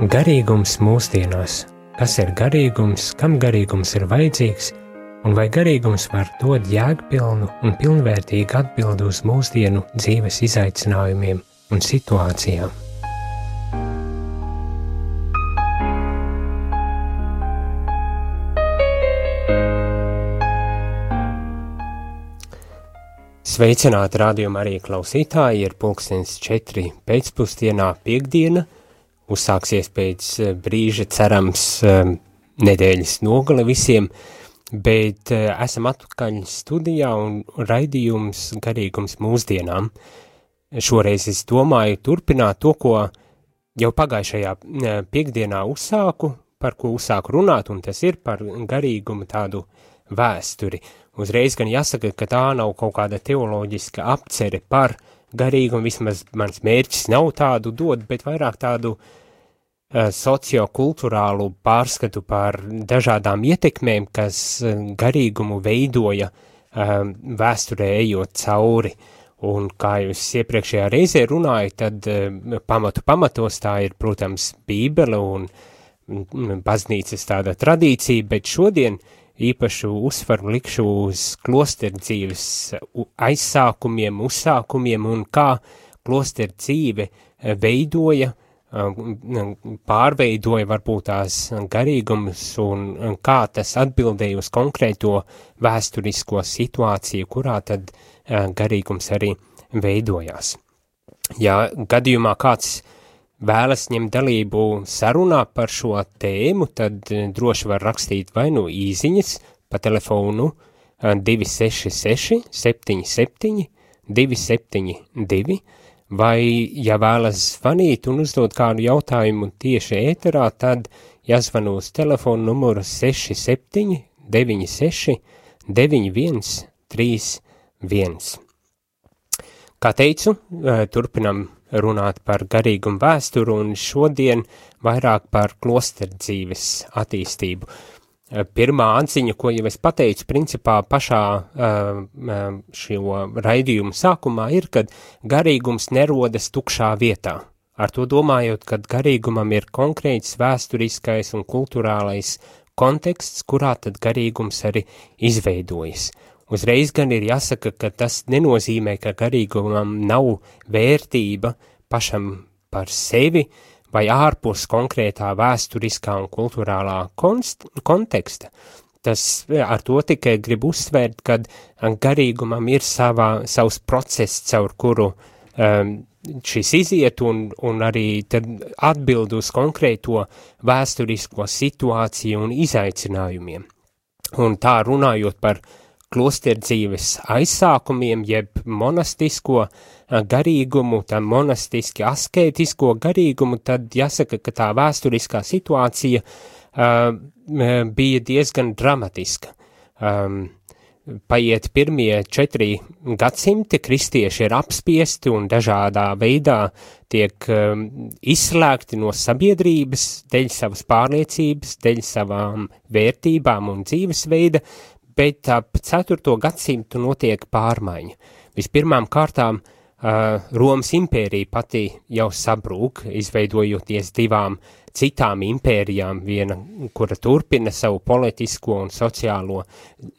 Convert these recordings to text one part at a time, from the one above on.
Garīgums mūsdienās. Kas ir garīgums, kam garīgums ir vajadzīgs, un vai garīgums var dot jēgpilnu un pilnvērtīgu atbildi uz mūsdienu dzīves izaicinājumiem un situācijām? Sveicināti rādījuma arī klausītāji, ir 4:00 pēcpusdienā piekdiena, uzsāksies pēc brīža cerams nedēļas nogale visiem, bet esam atpakaļ studijā un raidījums garīgums mūsdienām. Šoreiz es domāju turpināt to, ko jau pagājušajā piekdienā uzsāku, par ko uzsāku runāt, un tas ir par garīgumu tādu vēsturi. Uzreiz gan jāsaka, ka tā nav kaut kāda teoloģiska apcere par garīgumu, vismaz mans mērķis nav tādu dot, bet vairāk tādu sociokulturālu pārskatu par dažādām ietekmēm, kas garīgumu veidoja vēsturē ejot cauri. Un kā jūs iepriekšējā reizē runāju, tad pamatos tā ir, protams, Bībele un baznīcas tāda tradīcija, bet šodien īpašu uzsvaru likšu uz klosteru dzīves aizsākumiem, uzsākumiem un kā klosteru dzīve veidoja, pārveidoja varbūt tās garīgumus un kā tas atbildēja uz konkrēto vēsturisko situāciju, kurā tad garīgums arī veidojās. Ja gadījumā kāds vēlas ņemt dalību sarunā par šo tēmu, tad droši var rakstīt vai nu īziņas pa telefonu 266 77 272, vai, ja vēlas zvanīt un uzdot kādu jautājumu tieši ēterā, tad jāzvana uz telefonu numuru 67 96 91 31. Kā teicu, turpinam runāt par garīgumu vēsturu un šodien vairāk par klosteru dzīves attīstību. Pirmā atziņa, ko jau es pateicu, principā pašā šo raidījumu sākumā ir, kad garīgums nerodas tukšā vietā. Ar to domājot, kad garīgumam ir konkrēts vēsturiskais un kulturālais konteksts, kurā tad garīgums arī izveidojas. Uzreiz gan ir jāsaka, ka tas nenozīmē, ka garīgumam nav vērtība pašam par sevi vai ārpus konkrētā vēsturiskā un kulturālā konteksta. Tas ar to tikai grib uzsvērt, kad garīgumam ir savs process, caur kuru šis iziet un arī tad atbild uz konkrēto vēsturisko situāciju un izaicinājumiem. Un tā runājot par klosteru dzīves aizsākumiem, jeb monastisko garīgumu, tā monastiski askētisko garīgumu, tad jāsaka, ka tā vēsturiskā situācija bija diezgan dramatiska. Paiet pirmie 4 gadsimti, kristieši ir apspiesti un dažādā veidā tiek izslēgti no sabiedrības dēļ savas pārliecības, dēļ savām vērtībām un dzīvesveida, bet ap 4. gadsimtu notiek pārmaiņa. Vispirmām kārtām Romas impērija pati jau sabrūk, izveidojoties 2 citām impērijām, viena, kura turpina savu politisko un sociālo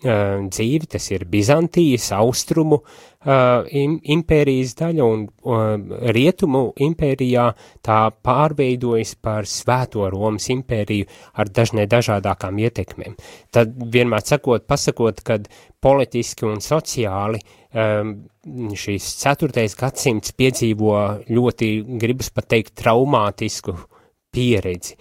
dzīvi, tas ir Bizantijas, austrumu impērijas daļa, un rietumu impērijā tā pārveidojas par Svēto Romas impēriju ar dažādākām ietekmēm. Tad vienmēr pasakot, kad politiski un sociāli šīs 4. gadsimts piedzīvo ļoti, gribas pat teikt, traumātisku pieredzi,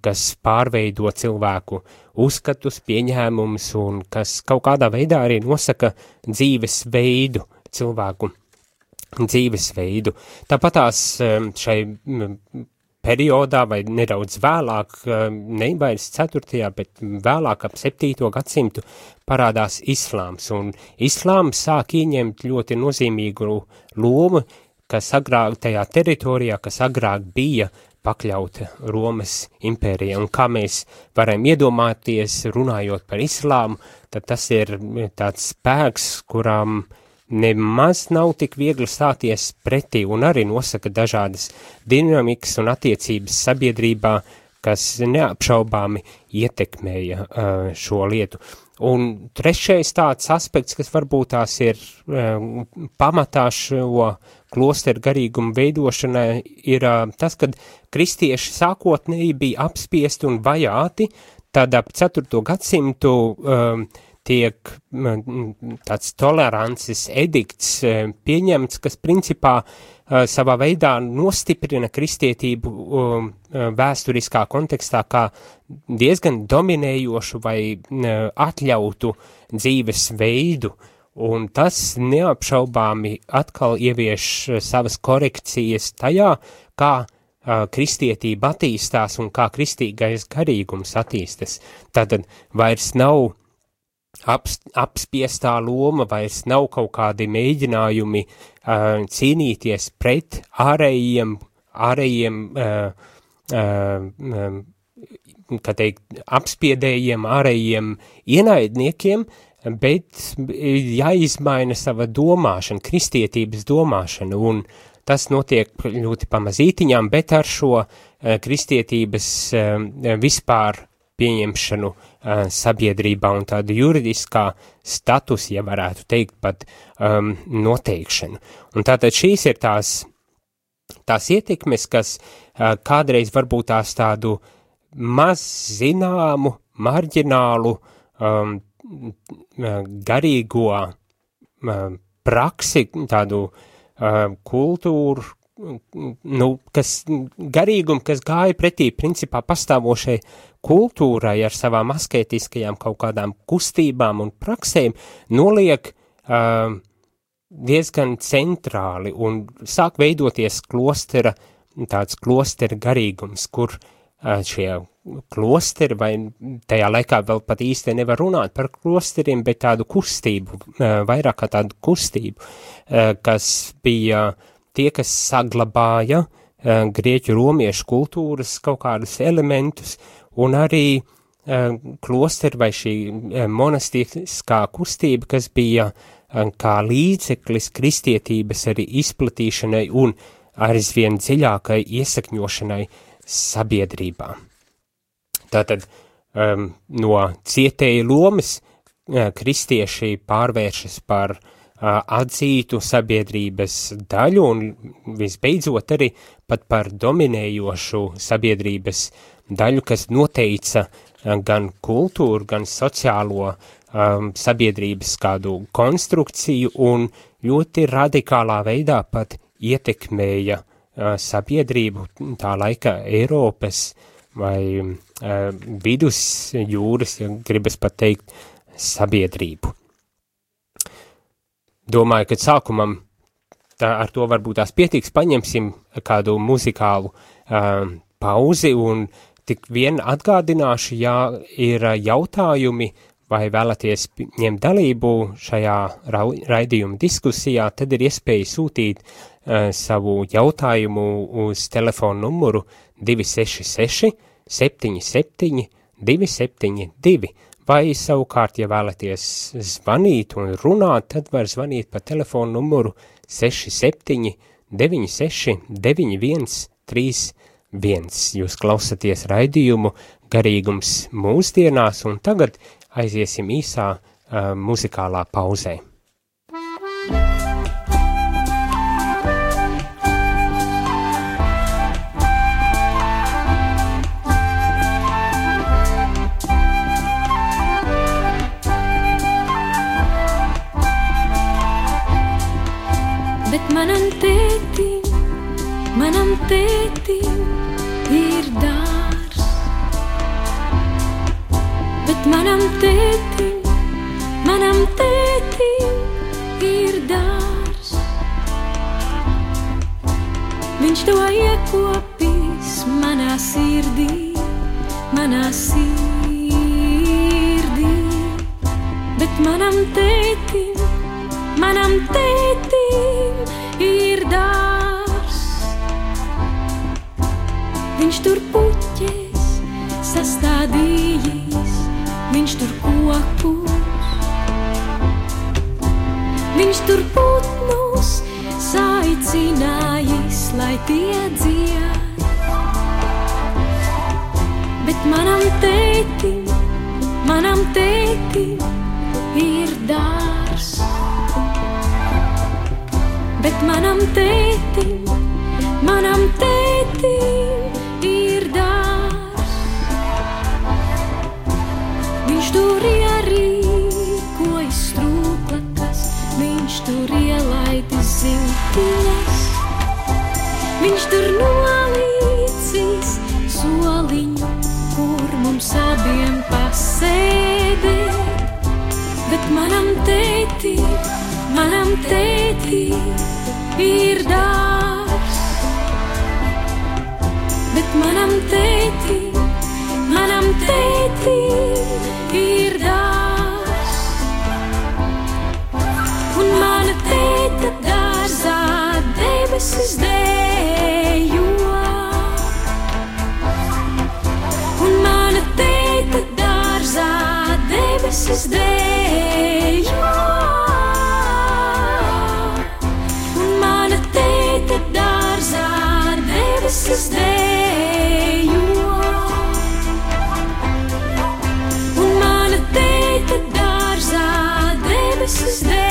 kas pārveido cilvēku uzskatus, pieņēmumus un kas kaut kādā veidā arī nosaka dzīvesveidu, cilvēku dzīvesveidu. Tāpatās šai periodā vai nedaudz vēlāk, ne vairs 4., bet vēlāk ap 7. gadsimtu parādās islāms, un islāms sāk ieņemt ļoti nozīmīgu lomu, kas agrāk tajā teritorijā, kas agrāk bija pakļauta Romas impērija, un kā mēs varam iedomāties, runājot par islāmu, tad tas ir tāds spēks, kuram nemaz nav tik viegli stāties pretī un arī nosaka dažādas dinamikas un attiecības sabiedrībā, kas neapšaubāmi ietekmēja šo lietu. Un trešais tāds aspekts, kas varbūt tās ir pamatā šo klosteru garīgumu veidošanai, ir tas, kad kristieši sākotnēji bija apspiesti un vajāti, tad ap 4. gadsimtu tiek tāds tolerances edikts pieņemts, kas principā savā veidā nostiprina kristietību vēsturiskā kontekstā kā diezgan dominējošu vai atļautu dzīves veidu, un tas neapšaubāmi atkal ievieš savas korekcijas tajā, kā kristietība attīstās un kā kristīgais garīgums attīstas. Tātad vairs nav apspiestā loma, vairs nav kaut kādi mēģinājumi cīnīties pret ārējiem kā teikt, apspiedējiem, ārējiem ienaidniekiem, bet jāizmaina sava domāšana, kristietības domāšana, un tas notiek ļoti pamazītiņām, bet ar šo kristietības vispār pieņemšanu sabiedrībā un tādu juridiskā status, ja varētu teikt, pat noteikšanu. Un tātad šīs ir tās ietekmes, kas kādreiz varbūt tās tādu maz zināmu, marģinālu garīgo praksi, tādu kultūru, garīgumu, kas gāja pretī principā pastāvošai kultūrai ar savām asketiskajām kaut kādām kustībām un praksēm, noliek diezgan centrāli un sāk veidoties tāds klostera garīgums, kur šie klosteri, vai tajā laikā vēl pat īsti nevar runāt par klosteriem, bet tādu kustību, vairāk kā tādu kustību, kas bija tie, kas saglabāja grieķu romiešu kultūras kaut kādus elementus, un arī klosteri vai šī monastiskā kustība, kas bija kā līdzeklis kristietības arī izplatīšanai un aizvien dziļākai iesakņošanai sabiedrībā. Tātad no cietēja lomas kristieši pārvēršas par atzītu sabiedrības daļu un visbeidzot arī pat par dominējošu sabiedrības daļu, kas noteica gan kultūru, gan sociālo sabiedrības kādu konstrukciju un ļoti radikālā veidā pat ietekmēja sabiedrību tā laika Eiropas vai vidusjūras, ja gribas pat teikt, sabiedrību. Domāju, ka sākumam ar to varbūt tās pietiks, paņemsim kādu muzikālu pauzi un tik vien atgādināšu, ja ir jautājumi vai vēlaties ņemt dalību šajā raidījuma diskusijā, tad ir iespēja sūtīt savu jautājumu uz telefonu numuru 266 77 272, vai savukārt, ja vēlaties zvanīt un runāt, tad var zvanīt pa telefonu numuru 67 96 91 31. Jūs klausaties raidījumu Garīgums mūsdienās, un tagad aiziesim īsā muzikālā pauzē. Bet manam tētim ir dārs, bet manam tētim ir dārs. Viņš to iekopīs manā sirdī, bet manam tētim ir dārs. Viņš tur puķes sastādījis, viņš tur kokus, Viņš tur putnus saicinājis, lai tie dzied. Bet manam tētim ir dārs. Bet manam tētim ir dārs. Viņš tur ierīkojas strūklakas, viņš tur ielaidis ziltiņas. Viņš tur nolīcis soliņu, kur mums abiem pasēdēt. Bet manam tētim ir dārs. Bet manam tētim ir dārs. Un mana tēta dārzā debesis dejo. Un mana tēta dārzā debesis dejo. Un mana tēta dārzā debesis dejo. Un mana tēta dārzā debesis dejo.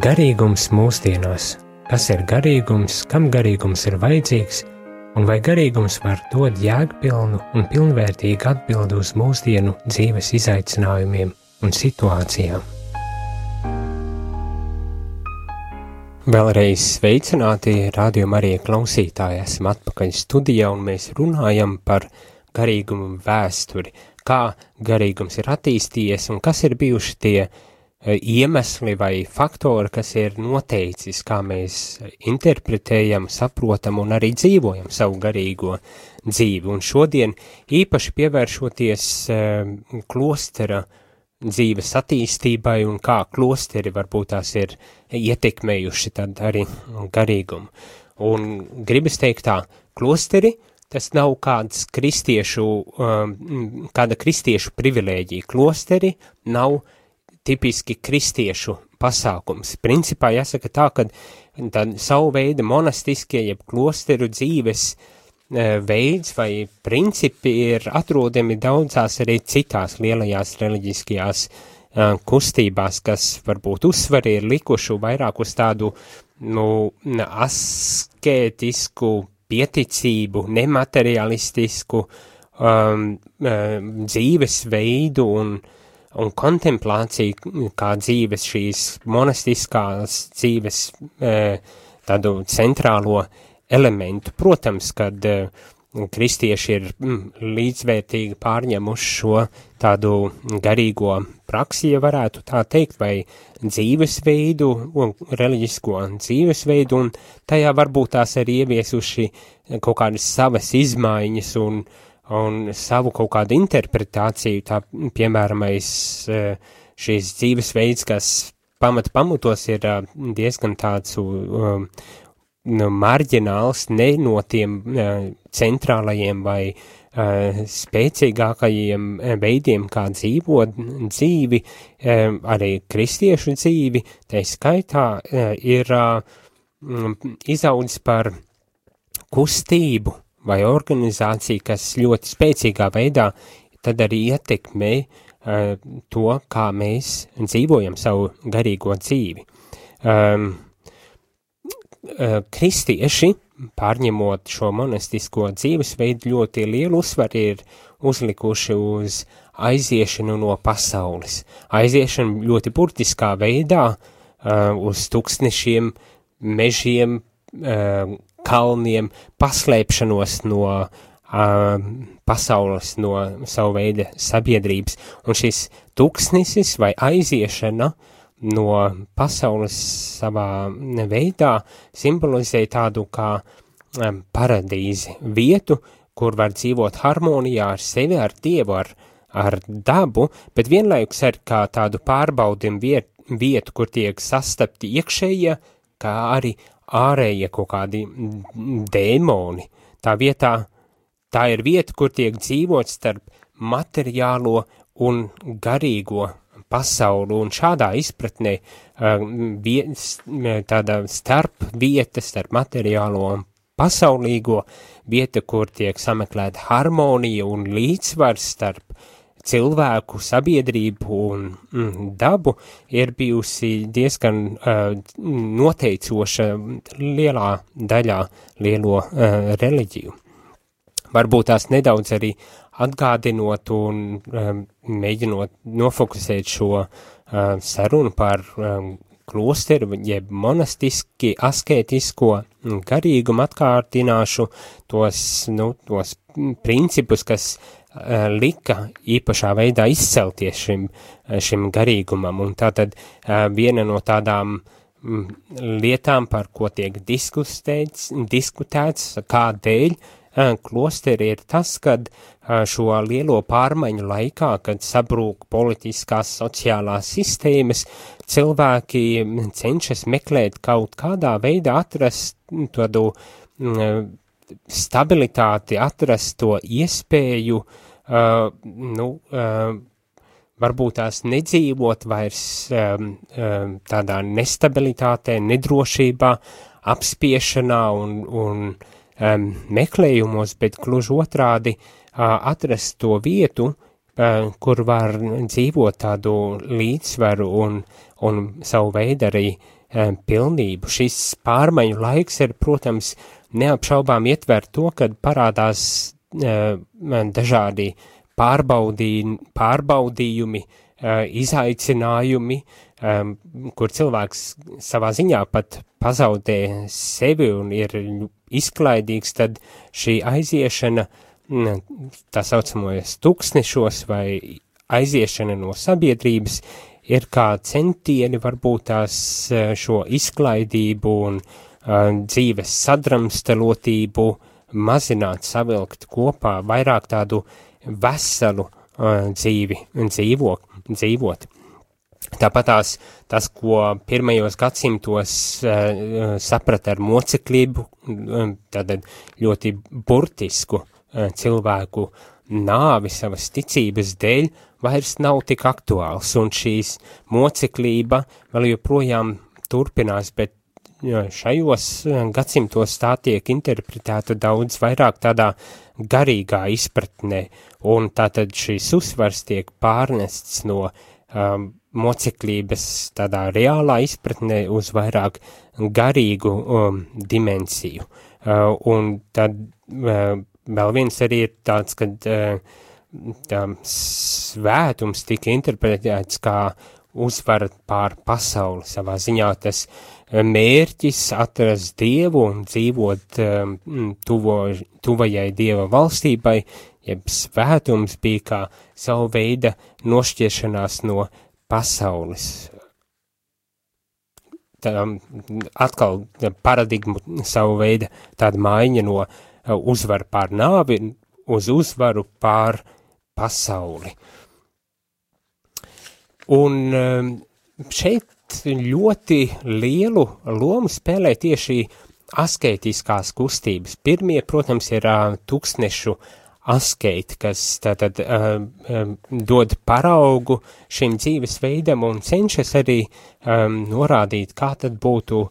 Garīgums mūsdienās. Kas ir garīgums, kam garīgums ir vajadzīgs, un vai garīgums var dot jēgpilnu un pilnvērtīgu atbildi uz mūsdienu dzīves izaicinājumiem un situācijām? Vēlreiz sveicināti Radio Marija klausītāji, esam atpakaļ studijā un mēs runājam par garīgumu vēsturi, kā garīgums ir attīstījies un kas ir bijuši tie iemesli vai faktori, kas ir noteicis, kā mēs interpretējam, saprotam un arī dzīvojam savu garīgo dzīvi. Un šodien īpaši pievēršoties klostera dzīves attīstībai un kā klosteri varbūt tās ir ietekmējuši tad arī garīgumu. Un gribas teikt tā, klosteri tas nav kāda kristiešu privilēģija. Klosteri nav tipiski kristiešu pasākums. Principā jāsaka tā, ka savu veidu monastiskie, jeb klosteru dzīves veids vai principi ir atrodami daudzās arī citās lielajās reliģiskajās kustībās, kas varbūt uzsvari ir likuši vairāk uz tādu askētisku pieticību, nematerialistisku dzīves veidu un kontemplāciju kā dzīves šīs monastiskās dzīves tādu centrālo elementu. Protams, kad kristieši ir līdzvērtīgi pārņemuši šo tādu garīgo praksi, ja varētu tā teikt, vai dzīvesveidu, reliģisko dzīvesveidu, un tajā varbūt tās arī ieviesuši kaut kādas savas izmaiņas un savu kaut kādu interpretāciju, tā piemēram, šīs dzīvesveids, kas pamatos ir diezgan tāds marģināls, ne no tiem centrālajiem vai spēcīgākajiem veidiem, kā dzīvot dzīvi, arī kristiešu dzīvi, tai skaitā ir izaudzis par kustību vai organizāciju, kas ļoti spēcīgā veidā tad arī ietekmē to, kā mēs dzīvojam savu garīgo dzīvi. Kristieši, pārņemot šo monastisko dzīvesveidu, ļoti lielu uzsvaru ir uzlikuši uz aiziešanu no pasaules. Aiziešanu ļoti burtiskā veidā uz tuksnešiem, mežiem, kalniem, paslēpšanos no pasaules, no savu veidu sabiedrības. Un šis tuksnesis vai aiziešana no pasaules savā veidā simbolizē tādu kā paradīzi, vietu, kur var dzīvot harmonijā ar sevi, ar Dievu, ar dabu, bet vienlaikus arī kā tādu pārbaudim vietu, kur tiek sastapti iekšējie, kā arī ārējie kaut kādi dēmoni. Tā ir vieta, kur tiek dzīvot starp materiālo un garīgo pasauli, un šādā izpratnē tāda starp vieta, starp materiālo un pasaulīgo vieta, kur tiek sameklēta harmonija un līdzsvars starp cilvēku, sabiedrību un dabu, ir bijusi diezgan noteicoša lielā daļā lielo reliģiju. Varbūt tās nedaudz arī atgādinot un mēģinot nofokusēt šo sarunu par klosteru, jeb monastiski asketisko garīgumu, atkārtināšu tos principus, kas lika īpašā veidā izcelties šim garīgumam. Un tātad viena no tādām lietām, par ko tiek diskutēts, kādēļ klosteri ir tas, kad šo lielo pārmaiņu laikā, kad sabrūk politiskās, sociālās sistēmas, cilvēki cenšas meklēt kaut kādā veidā atrast tādu stabilitāti, atrast to iespēju, varbūt tās nedzīvot vairs tādā nestabilitātē, nedrošībā, apspiešanā un meklējumos, bet gluži otrādi atrast to vietu, kur var dzīvot tādu līdzsvaru un savu veidu arī pilnību. Šis pārmaiņu laiks ir, protams, neapšaubām ietver to, kad parādās dažādi pārbaudījumi, izaicinājumi, kur cilvēks savā ziņā pat pazaudē sevi un ir izklaidīgs, tad šī aiziešana tā saucamajos tuksnešos vai aiziešana no sabiedrības ir kā centieni varbūt tās šo izklaidību un dzīves sadramstalotību mazināt, savilkt kopā, vairāk tādu veselu dzīvi dzīvot. Tāpat tas, ko pirmajos gadsimtos saprata ar moceklību, tātad ļoti burtisku cilvēku nāvi savas ticības dēļ, vairs nav tik aktuāls, un šīs moceklība vēl joprojām turpinās, bet šajos gadsimtos tā tiek interpretēta daudz vairāk tādā garīgā izpratnē, un tātad šīs uzsvars tiek pārnests no moceklības tādā reālā izpratnē uz vairāk garīgu dimensiju. Un tad vēl viens arī ir tāds, kad svētums tika interpretēts kā uzvara pār pasauli. Savā ziņā tas mērķis atrast Dievu un dzīvot tuvajai Dieva valstībai, jeb svētums bija kā savu veida nošķiešanās no pasaules. Atkal paradigmu savu veidu tāda maiņa no uzvaru pār nāvi uz uzvaru pār pasauli. Un šeit ļoti lielu lomu spēlē tieši asketiskās kustības. Pirmie, protams, ir tūkstnešu asketi, kas tātad dod paraugu šim dzīvesveidam un cenšas arī norādīt, kā tad būtu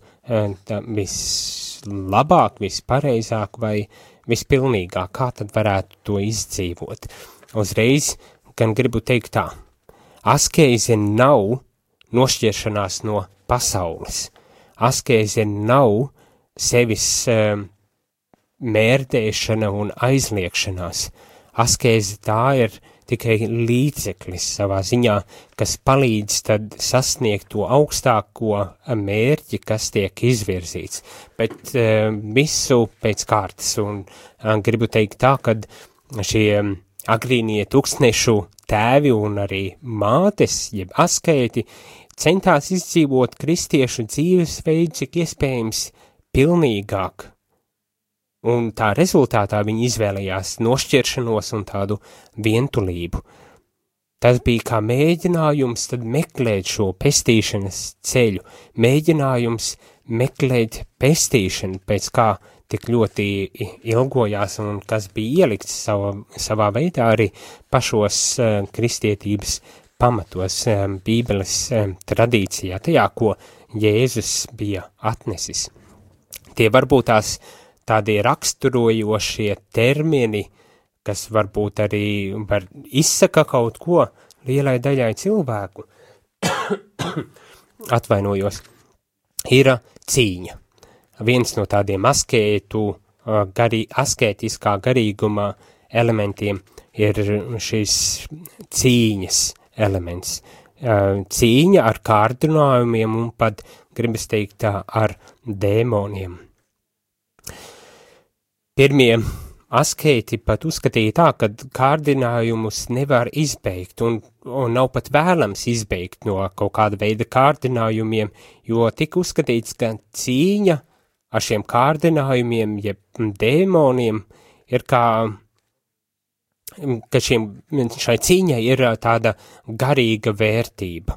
vislabāk, vispareizāk vai vispilnīgāk, kā tad varētu to izdzīvot. Uzreiz gan gribu teikt tā, askēze nav nošķiršanās no pasaules, askēze nav sevis mērdēšana un aizliekšanās, askēze tā ir tikai līdzeklis savā ziņā, kas palīdz tad sasniegt to augstāko mērķi, kas tiek izvirzīts, bet visu pēc kārtas, un gribu teikt tā, kad šie agrīnie tūkstnešu tēvi un arī mātes, jeb askēti, centās izdzīvot kristiešu dzīvesveidu, cik iespējams pilnīgāk, un tā rezultātā viņi izvēlējās nošķiršanos un tādu vientulību. Tas bija kā mēģinājums tad meklēt šo pestīšanas ceļu, mēģinājums meklēt pestīšanu, pēc kā tik ļoti ilgojās un kas bija ielikts savā veidā arī pašos kristietības pamatos, Bībeles tradīcijā, tajā, ko Jēzus bija atnesis. Tie varbūt tās tādi raksturojošie termini, kas varbūt arī izsaka kaut ko lielai daļai cilvēku, atvainojos, ir cīņa. Viens no tādiem askētiskā garīguma elementiem ir šis cīņas elements. Cīņa ar kārdinājumiem un pat, gribas teikt tā, ar dēmoniem. Pirmie askēti pat uzskatīja tā, ka kārdinājumus nevar izbeigt un nav pat vēlams izbeigt no kaut kāda veida kārdinājumiem, jo tika uzskatīts, ka cīņa ar šiem kārdinājumiem, jeb dēmoniem, ir kā, ka šai cīņai ir tāda garīga vērtība,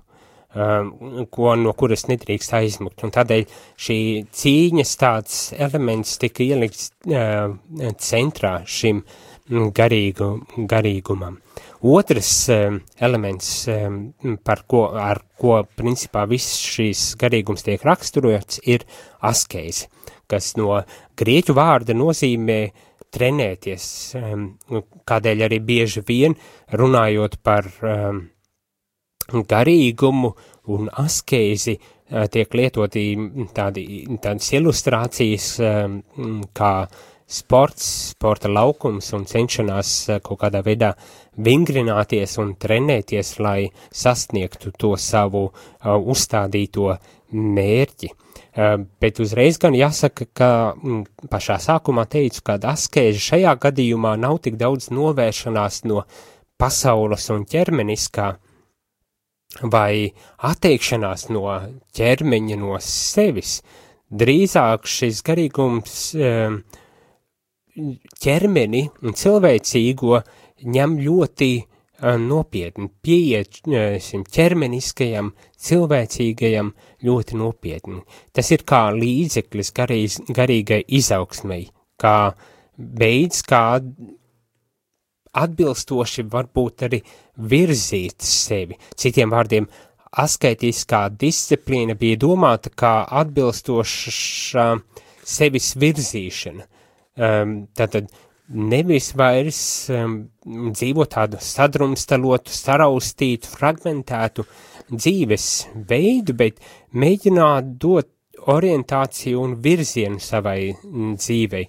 no kuras nedrīkst aizmukt, un tādēļ šī cīņas tāds elements tika ielikts centrā šim garīgumam. Otrs elements, ar ko principā viss šīs garīgums tiek raksturots, ir askēze, kas no grieķu vārda nozīmē trenēties, kādēļ arī bieži vien runājot par garīgumu un askēzi tiek lietoti tādas ilustrācijas kā sporta laukums un cenšanās kaut kādā veidā vingrināties un trenēties, lai sasniegtu to savu uzstādīto mērķi. Bet uzreiz gan jāsaka, ka pašā sākumā teicu, ka askēze šajā gadījumā nav tik daudz novēršanās no pasaules un ķermeniskā, vai atteikšanās no ķermeņa, no sevis. Drīzāk šis garīgums ķermeni un cilvēcīgo ņem ļoti nopietni, pieiet ķermeniskajam, cilvēcīgajam ļoti nopietni. Tas ir kā līdzeklis garīgai izaugsmei, kā veids, kā atbilstoši varbūt arī virzīt sevi. Citiem vārdiem, asketiskā disciplīna bija domāta kā atbilstoša sevis virzīšana. Tātad nevis vairs dzīvot tādu sadrumstalotu, saraustītu, fragmentētu dzīves veidu, bet mēģināt dot orientāciju un virzienu savai dzīvei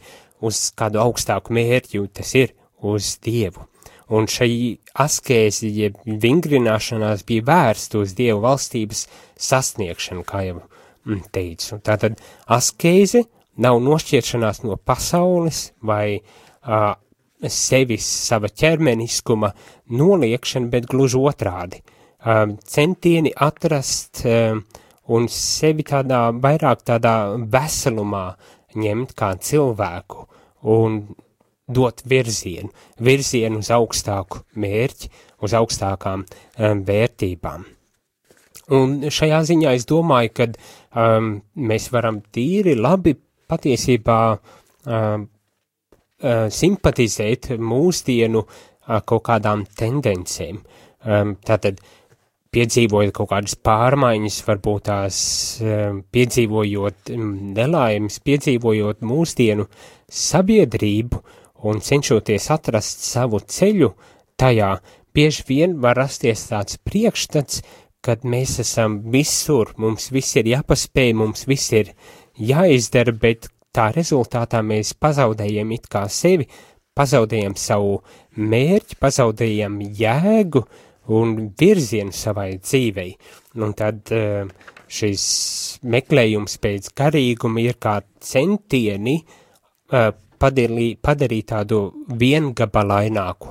uz kādu augstāku mērķi, tas ir uz Dievu. Un šai askēzi, jeb vingrināšanās bija vērsta uz Dievu valstības sasniegšanu, kā jau teicu. Tātad askēze nav nošķiršanās no pasaules vai sevis, sava ķermeniskuma noliekšana, bet gluži otrādi. Centieni atrast un sevi vairāk tādā veselumā ņemt kā cilvēku un dot virzienu uz augstāku mērķi, uz augstākām vērtībām. Un šajā ziņā es domāju, ka mēs varam tīri labi patiesībā simpatizēt mūsdienu kaut kādām tendencēm. Tātad piedzīvojot kaut kādas pārmaiņas, varbūt tās piedzīvojot nelaimes, piedzīvojot mūsdienu sabiedrību un cenšoties atrast savu ceļu tajā, bieži vien var rasties tāds priekšstats, kad mēs esam visur, mums viss ir jāpaspēj, mums viss ir jāizdara, bet tā rezultātā mēs pazaudējam it kā sevi, pazaudējam savu mērķi, pazaudējam jēgu un virzienu savai dzīvei. Un tad šis meklējums pēc garīguma ir kā centieni padarīt tādu viengabalaināku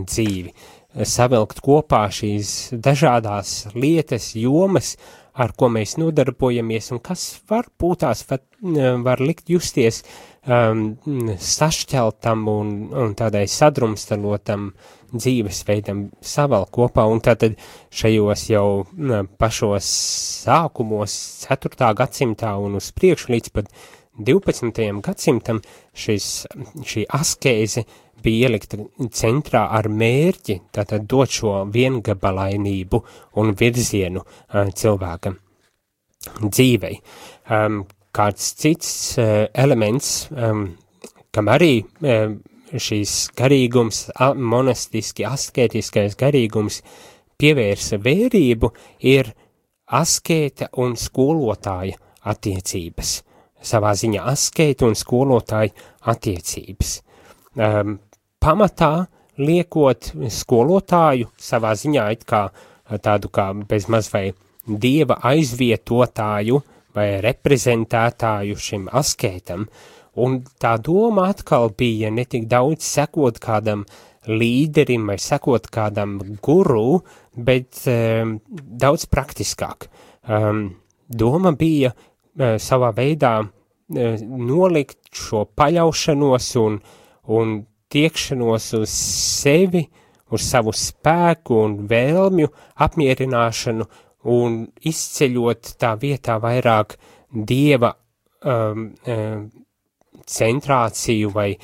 dzīvi, savilkt kopā šīs dažādās lietas, jomas, ar ko mēs nodarbojamies un kas varbūt tās var likt justies sašķeltam un tādai sadrumstalotam dzīvesveidam savēl kopā, un tātad šajos jau pašos sākumos 4. gadsimtā un uz priekšu līdz pat 12. gadsimtam šī askēze bija ielikta centrā ar mērķi, tātad dot šo viengabalainību un virzienu cilvēka dzīvei. Kāds cits elements, kam arī šīs garīgums, monastiski, askētiskais garīgums pievērsa vērību, ir askēta un skolotāja attiecības. Savā ziņā askēta un skolotāja attiecības. Pamatā liekot skolotāju savā ziņā it kā tādu kā bezmaz vai dieva aizvietotāju vai reprezentētāju šim askētam, un tā doma atkal bija ne tik daudz sekot kādam līderim vai sekot kādam guru, bet daudz praktiskāk. Doma bija savā veidā nolikt šo paļaušanos un tiekšanos uz sevi, uz savu spēku un vēlmju apmierināšanu un izceļot tā vietā vairāk dieva centrāciju vai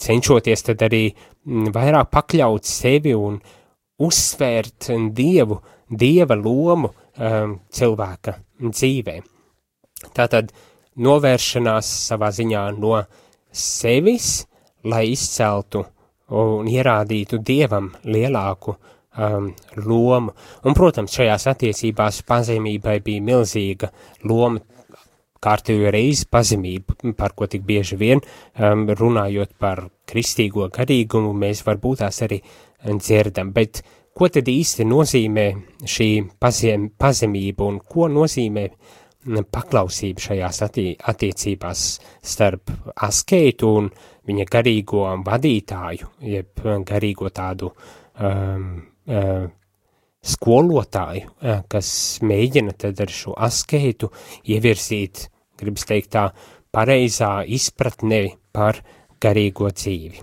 cenšoties tad arī vairāk pakļaut sevi un uzsvērt dieva lomu cilvēka dzīvē. Tātad novēršanās savā ziņā no sevis, lai izceltu un ierādītu dievam lielāku lomu. Un, protams, šajās attiecībās pazemībai bija milzīga loma, kārtējo reizi pazemību, par ko tik bieži vien runājot par kristīgo garīgumu, mēs varbūt tās arī dzirdam. Bet ko tad īsti nozīmē šī pazemība un ko nozīmē paklausība šajās attiecībās starp askētu un viņa garīgo vadītāju, jeb garīgo tādu skolotāju, kas mēģina tad ar šo askētu ievirzīt, gribas teikt tā, pareizā izpratnē par garīgo dzīvi.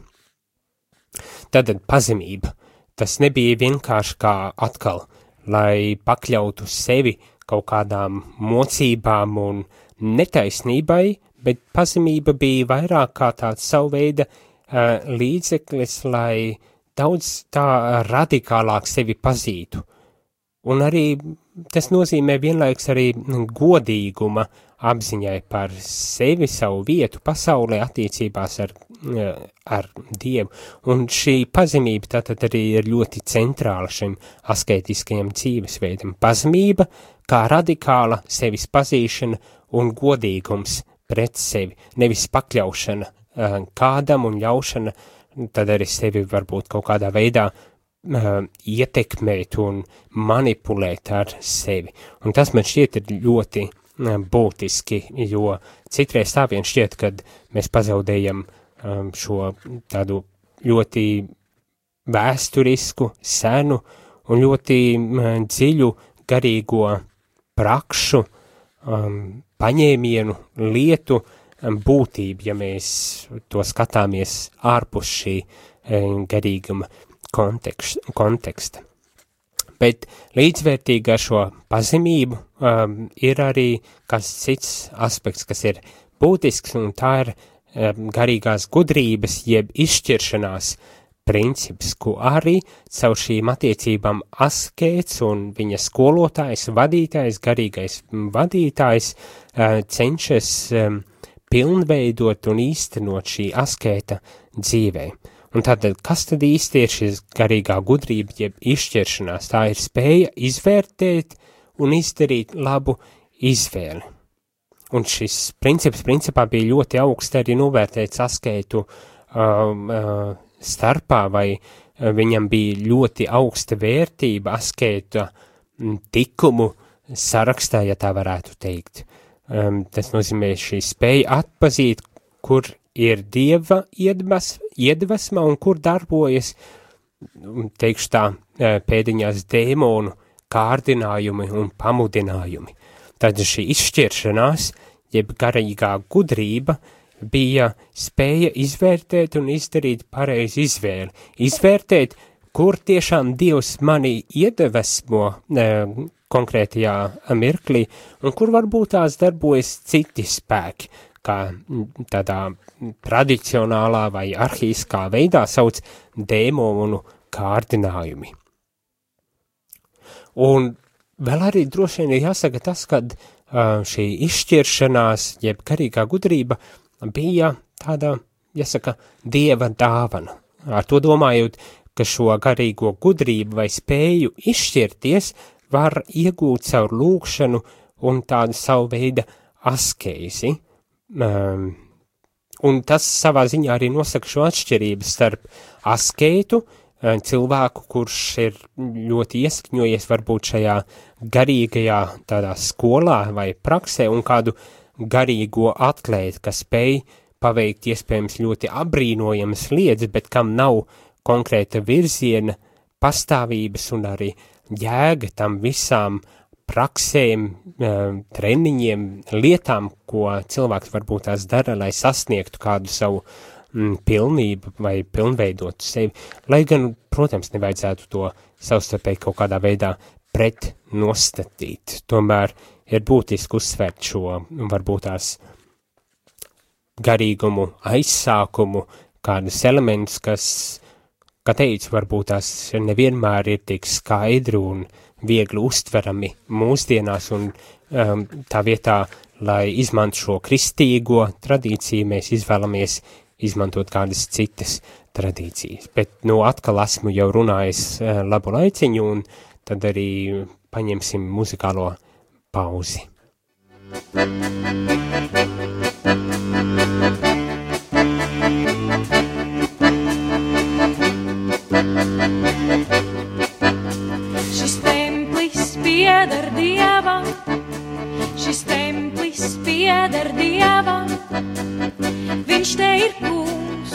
Tātad pazemība, tas nebija vienkārši kā atkal, lai pakļautu sevi kaut kādām mocībām un netaisnībai, bet pazemība bija vairāk kā tāds savu veida līdzeklis, lai daudz tā radikālāk sevi pazītu. Un arī tas nozīmē vienlaiks arī godīguma apziņai par sevi, savu vietu pasaulē, attiecībās ar Dievu. Un šī pazemība tātad arī ir ļoti centrāla šim asketiskajam dzīvesveidam. Pazemība kā radikāla sevis pazīšana un godīgums pret sevi, nevis pakļaušana kādam un ļaušana tad arī sevi varbūt kaut kādā veidā ietekmēt un manipulēt ar sevi. Un tas man šķiet ir ļoti būtiski, jo citreiz tā vien šķiet, kad mēs pazaudējam šo tādu ļoti vēsturisku, senu un ļoti dziļu garīgo prakšu, paņēmienu, lietu būtību, ja mēs to skatāmies ārpus šī garīguma konteksta. Bet līdzvērtīgi ar šo pazemību ir arī kāds cits aspekts, kas ir būtisks, un tā ir garīgās gudrības, jeb izšķiršanās princips, ko arī caur šīm attiecībām askēts un viņa skolotājs, vadītājs, garīgais vadītājs cenšas pilnveidot un īstenot šī askēta dzīvē. Un tātad, kas tad īsti ir šis garīgā gudrība, jeb izšķiršanās? Tā ir spēja izvērtēt un izdarīt labu izvēli. Un šis princips principā bija ļoti augsts arī novērtēts askētu starpā, vai viņam bija ļoti augsta vērtība askēta tikumu sarakstā, ja tā varētu teikt. Tas nozīmē šī spēja atpazīt, kur ir Dieva iedvesma un kur darbojas, teikšu tā, pēdiņās dēmonu kārdinājumi un pamudinājumi. Tad šī izšķiršanās, jeb garīgā gudrība, bija spēja izvērtēt un izdarīt pareizi izvēli. Izvērtēt, kur tiešām Dievs mani iedvesmo konkrētajā mirklī, un kur varbūt tās darbojas citi spēki, kā tādā tradicionālā vai arhīskā veidā sauc dēmonu kārdinājumi. Un vēl arī droši vien ir jāsaka tas, kad šī izšķiršanās, jeb garīgā gudrība, bija tāda, jāsaka, Dieva dāvana. Ar to domājot, ka šo garīgo gudrību vai spēju izšķirties var iegūt caur lūgšanu un tādu savu veidu askēzi. Un tas savā ziņā arī nosaka šo atšķirību starp askētu, cilvēku, kurš ir ļoti ieskņojies varbūt šajā garīgajā tādā skolā vai praksē, un kādu garīgo atlētu, kas spēj paveikt iespējams ļoti apbrīnojamas lietas, bet kam nav konkrēta virziena, pastāvības un arī jēga tam visām praksēm, treniņiem, lietām, ko cilvēks varbūt tās dara, lai sasniegtu kādu savu pilnību vai pilnveidotu sevi. Lai gan, protams, nevajadzētu to savstarpēji kaut kādā veidā pretnostatīt. Tomēr ir būtiski uzsvērt šo varbūt tās garīgumu, aizsākumu, kādus elementus, kas, kā teicu, varbūt tās nevienmēr ir tik skaidri un viegli uztverami mūsdienās, un tā vietā, lai izmantu šo kristīgo tradīciju, mēs izvēlamies izmantot kādas citas tradīcijas. Bet, atkal esmu jau runājis labu laiciņu, un tad arī paņemsim muzikālo pauzi. Šis templis pieder Dievam, šis templis pieder Dievam, viņš te ir kungs,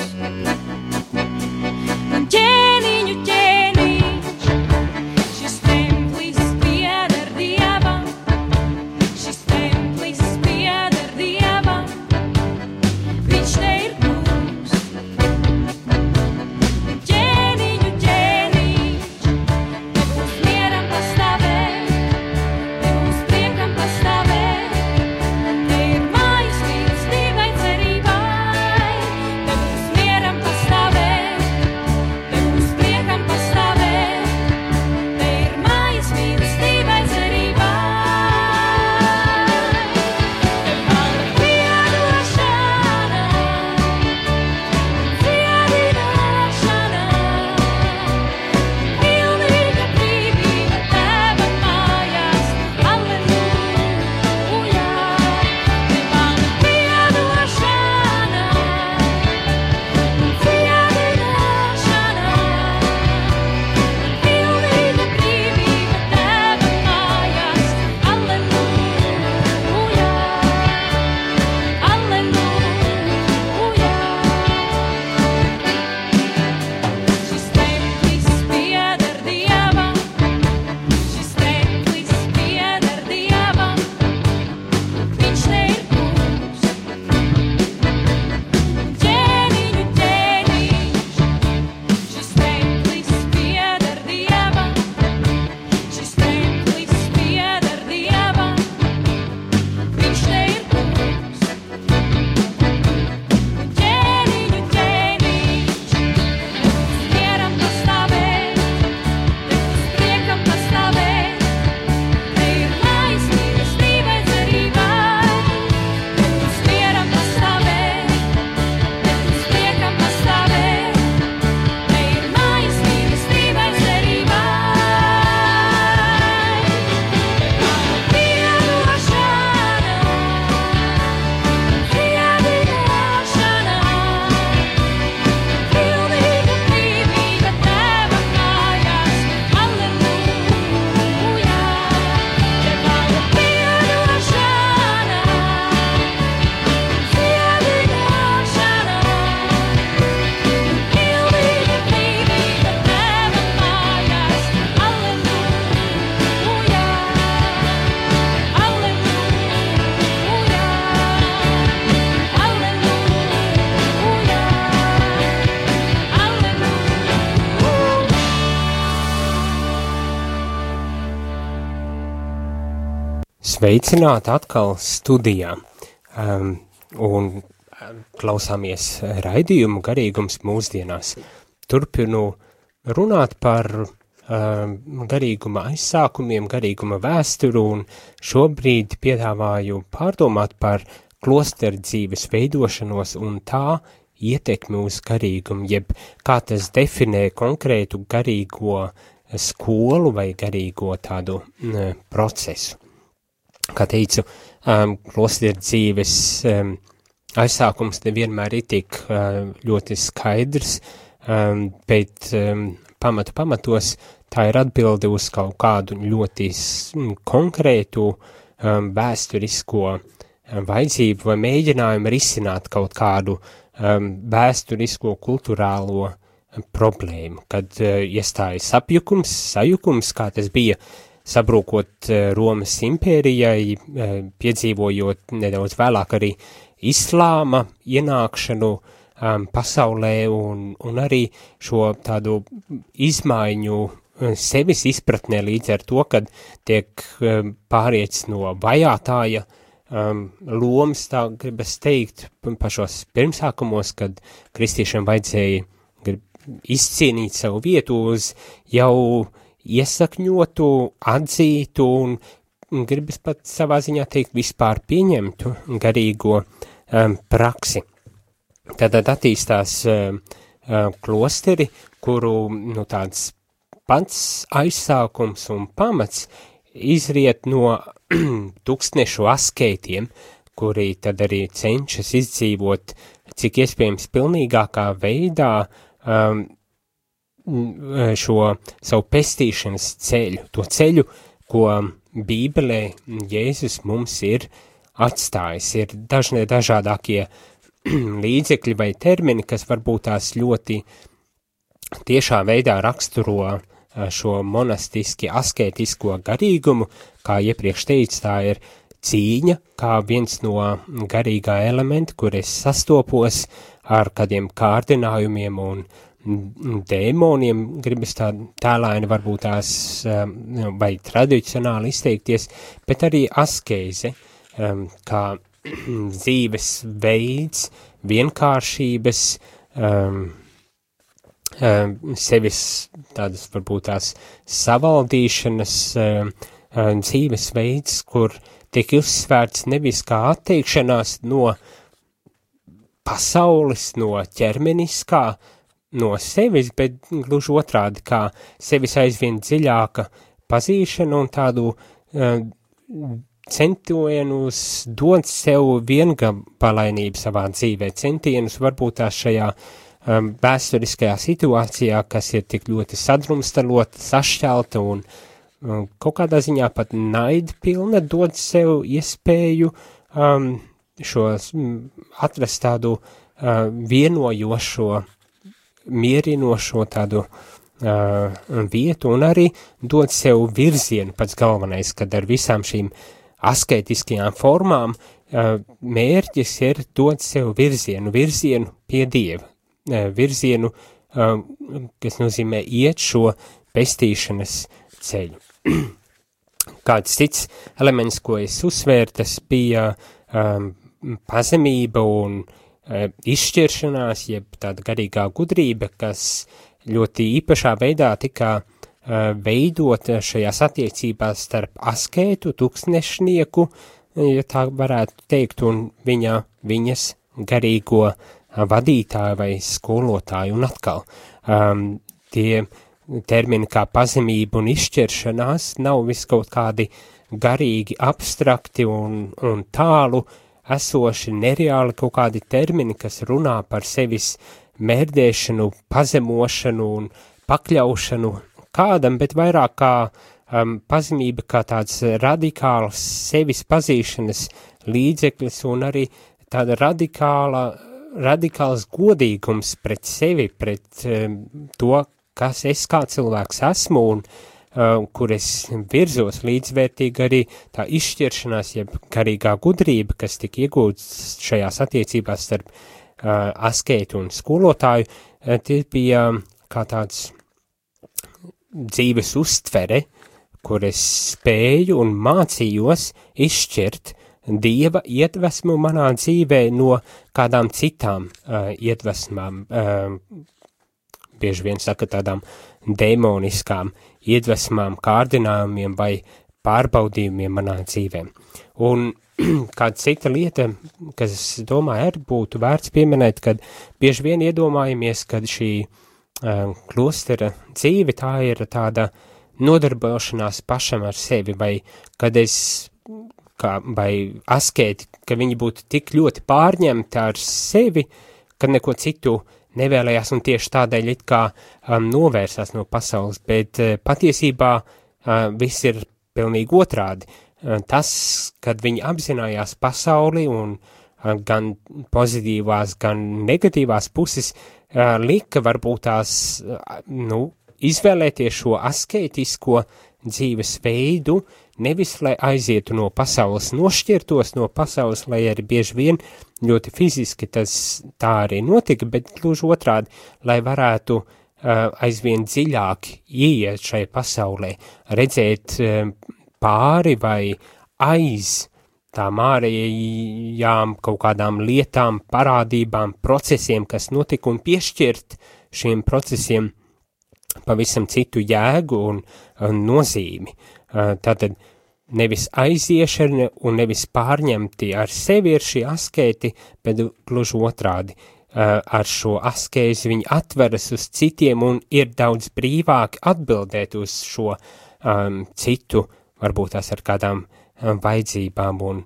un ķēniņu ķēniņš. Šis templis pieder Dievam, šis templis pieder Dievam, viņš te ir kungs, un ķēniņu ķēniņš. Sveicināti atkal studijā, un klausāmies raidījumu Garīgums mūsdienās. Turpinu runāt par garīguma aizsākumiem, garīguma vēsturu, un šobrīd piedāvāju pārdomāt par klosteru dzīves veidošanos un tā ietekmi uz garīgumu, jeb kā tas definē konkrētu garīgo skolu vai garīgo tādu procesu. Kā teicu, klosteru dzīves aizsākums nevienmēr ir tik ļoti skaidrs, bet pamatos tā ir atbilde uz kaut kādu ļoti konkrētu vēsturisko vajadzību vai mēģinājumu risināt kaut kādu vēsturisko kulturālo problēmu, kad iestājas sajukums, kā tas bija sabrūkot Romas impērijai, piedzīvojot nedaudz vēlāk arī islāma ienākšanu pasaulē un arī šo tādu izmaiņu sevis izpratnē līdz ar to, kad tiek pārietis no vajātāja lomas, tā gribas teikt, pašos pirmsākumos, kad kristiešiem vajadzēja izcīnīt savu vietu uz jau iesakņotu, atzītu un gribas pat savā ziņā teikt vispār pieņemtu garīgo praksi. Tātad attīstās klosteri, kuru tāds pats aizsākums un pamats izriet no tūkstnešu askētiem, kuri tad arī cenšas izdzīvot cik iespējams pilnīgākā veidā šo savu pestīšanas ceļu, to ceļu, ko Bībelē Jēzus mums ir atstājis. Ir dažādākie līdzekļi vai termini, kas varbūt tās ļoti tiešā veidā raksturo šo monastiski askētisko garīgumu, kā iepriekš teicu, tā ir cīņa, kā viens no garīgā elementa, kur es sastopos ar kādiem kārdinājumiem un dēmoniem, gribas tā tēlaini varbūt tās vai tradicionāli izteikties, bet arī askēze, kā dzīves veids, vienkāršības, sevis tādas varbūt tās savaldīšanas dzīves veids, kur tiek uzsvērts nevis kā atteikšanās no pasaules, no ķermeniskā, no sevis, bet gluži otrādi kā sevis aizvien dziļāka pazīšana un tādu centienus dot sev viengabalainību savā dzīvē, centienus varbūt tās šajā vēsturiskajā situācijā, kas ir tik ļoti sadrumstalota, sašķelta un kaut kādā ziņā pat naidpilna, dod sev iespēju atrast tādu vienojošo, mierinošo tādu vietu un arī dod sev virzienu pats galvenais, kad ar visām šīm asketiskajām formām mērķis ir dot sev virzienu pie Dieva, virzienu, kas nozīmē iet šo pestīšanas ceļu. Kāds cits elements, ko es uzsvēru, tas bija pazemība un izšķiršanās, jeb tāda garīgā gudrība, kas ļoti īpašā veidā tika veidota šajās attiecībās starp askētu, tūkstnešnieku, ja tā varētu teikt, un viņas garīgo vadītāju vai skolotāju. Un atkal, tie termini kā pazemība un izšķiršanās nav vis kaut kādi garīgi, abstrakti un tālu esoši, nereāli kaut kādi termini, kas runā par sevis mērdēšanu, pazemošanu un pakļaušanu kādam, bet vairāk kā pazemība kā tāds radikāls sevis pazīšanas līdzeklis un arī tāda radikāls godīgums pret sevi, pret to, kas es kā cilvēks esmu un kur es virzos līdzvērtīgi arī tā izšķiršanās, jeb garīgā gudrība, kas tika iegūts šajās attiecībās starp askētu un skolotāju, tie bija kā tāds dzīves uztvere, kur es spēju un mācījos izšķirt Dieva iedvesmu manā dzīvē no kādām citām iedvesmām, bieži vien saka tādām demoniskām iedvesmām, kārdinājumiem vai pārbaudījumiem manā dzīvē. Un kāda cita lieta, kas, es domāju, arī būtu vērts pieminēt, kad bieži vien iedomājamies, kad šī klostera dzīve, tā ir tāda nodarbošanās pašam ar sevi, vai kad vai askēti, ka viņi būtu tik ļoti pārņemti ar sevi, ka neko citu nevēlējās un tieši tādēļ it kā novērsās no pasaules, bet patiesībā viss ir pilnīgi otrādi. Tas, kad viņi apzinājās pasauli un gan pozitīvās, gan negatīvās puses, lika varbūt tās, izvēlēties šo askētisko dzīves veidu, nevis, lai aizietu no pasaules, nošķirtos no pasaules, lai arī bieži vien ļoti fiziski tas tā arī notika, bet gluži otrādi, lai varētu aizvien dziļāk ieiet šai pasaulē, redzēt pāri vai aiz tām ārējām kaut kādām lietām, parādībām, procesiem, kas notika, un piešķirt šiem procesiem pavisam citu jēgu un nozīmi. Tātad nevis aiziešana un nevis pārņemti ar sevi ir šī askēti, bet gluži otrādi. Ar šo askēzi viņi atveras uz citiem un ir daudz brīvāk atbildēt uz šo citu, varbūt tās ar kādām vajadzībām un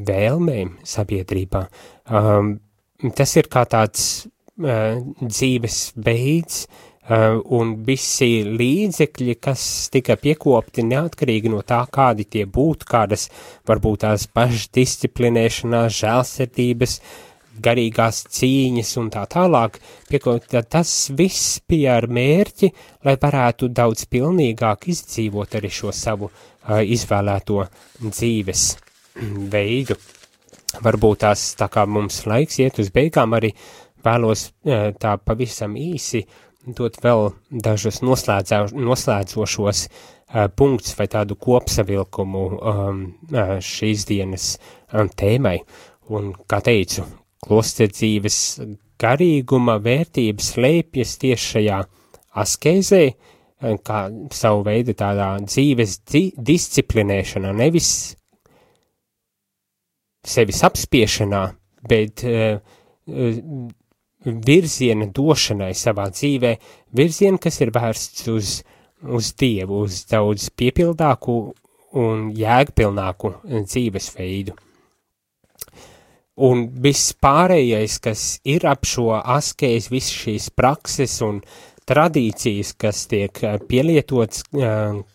vēlmēm sabiedrībā. Tas ir kā tāds dzīves veids, un visi līdzekļi, kas tika piekopti neatkarīgi no tā, kādi tie būtu, kādas varbūt tās pašdisciplinēšanās, žēlsirdības, garīgās cīņas un tā tālāk, tas viss bija ar mērķi, lai varētu daudz pilnīgāk izdzīvot arī šo savu izvēlēto dzīves veidu. Varbūt tās, tā kā mums laiks iet uz beigām, arī vēlos tā pavisam īsi dot vēl dažus noslēdzošos punktus vai tādu kopsavilkumu šīs dienas tēmai. Un, kā teicu, klosterdzīves garīguma vērtības slēpjas tieši šajā askēzē, kā savu veidu tādā dzīves disciplinēšanā, nevis sevis apspiešanā, bet virziena došanai savā dzīvē, virziena, kas ir vērsts uz Dievu, uz daudz piepildāku un jēgpilnāku dzīvesveidu. Un viss pārējais, kas ir ap šo askēzi, visas šīs prakses un tradīcijas, kas tiek pielietots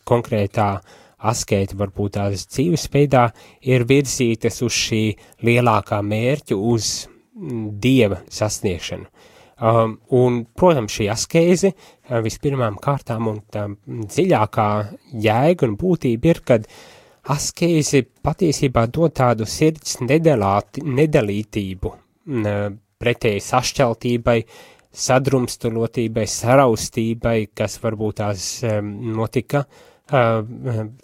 konkrētā askēta, varbūt tās dzīvesveidā, ir virzītas uz šī lielākā mērķa, uz Dieva sasniegšanu. Un, protams, šī askēze vispirmām kārtām un tā dziļākā jēga un būtība ir, kad askēze patiesībā dod tādu sirds nedalītību, pretēji sašķeltībai, sadrumstalotībai, saraustībai, kas varbūt tās notika 4.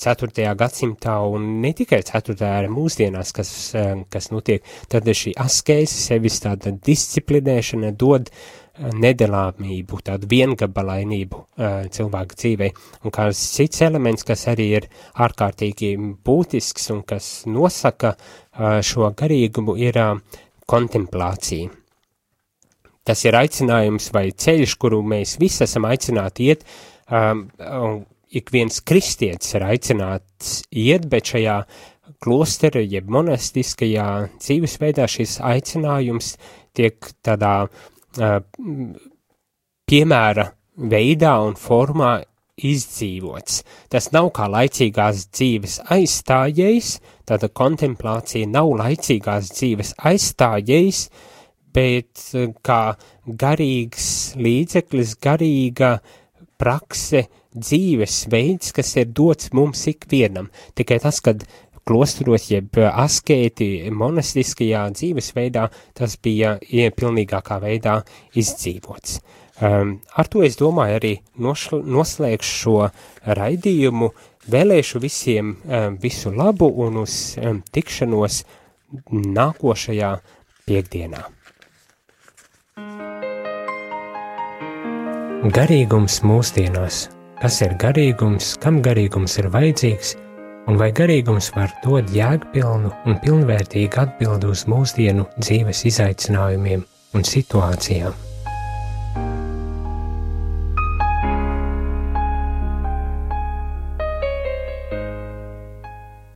gadsimtā un ne tikai 4. arī mūsdienās, kas notiek, tad šī askēze, sevis tāda disciplinēšana dod nedalāmību, tādu viengabalainību cilvēku dzīvē. Un kāds cits elements, kas arī ir ārkārtīgi būtisks un kas nosaka šo garīgumu, ir kontemplācija. Tas ir aicinājums vai ceļš, kuru mēs visi esam aicināti iet, ik viens kristietis ir aicināts iet, bet šajā klostera, jeb monastiskajā dzīvesveidā šis aicinājums tiek tādā piemēra veidā un formā izdzīvots. Tas nav kā laicīgās dzīves aizstājējs, tāda kontemplācija nav laicīgās dzīves aizstājējs, bet kā garīgs līdzeklis, garīga prakse, dzīves veids, kas ir dots mums ikvienam. Tikai tas, kad klosteros, jeb askēti monastiskajā dzīvesveidā, tas bija pilnīgākā veidā izdzīvots. Ar to es domāju arī noslēgšu šo raidījumu, vēlēšu visiem visu labu un uz tikšanos nākošajā piekdienā. Garīgums mūsdienās. Kas ir garīgums, kam garīgums ir vajadzīgs, un vai garīgums var dot jēgpilnu un pilnvērtīgu atbildi uz mūsdienu dzīves izaicinājumiem un situācijām?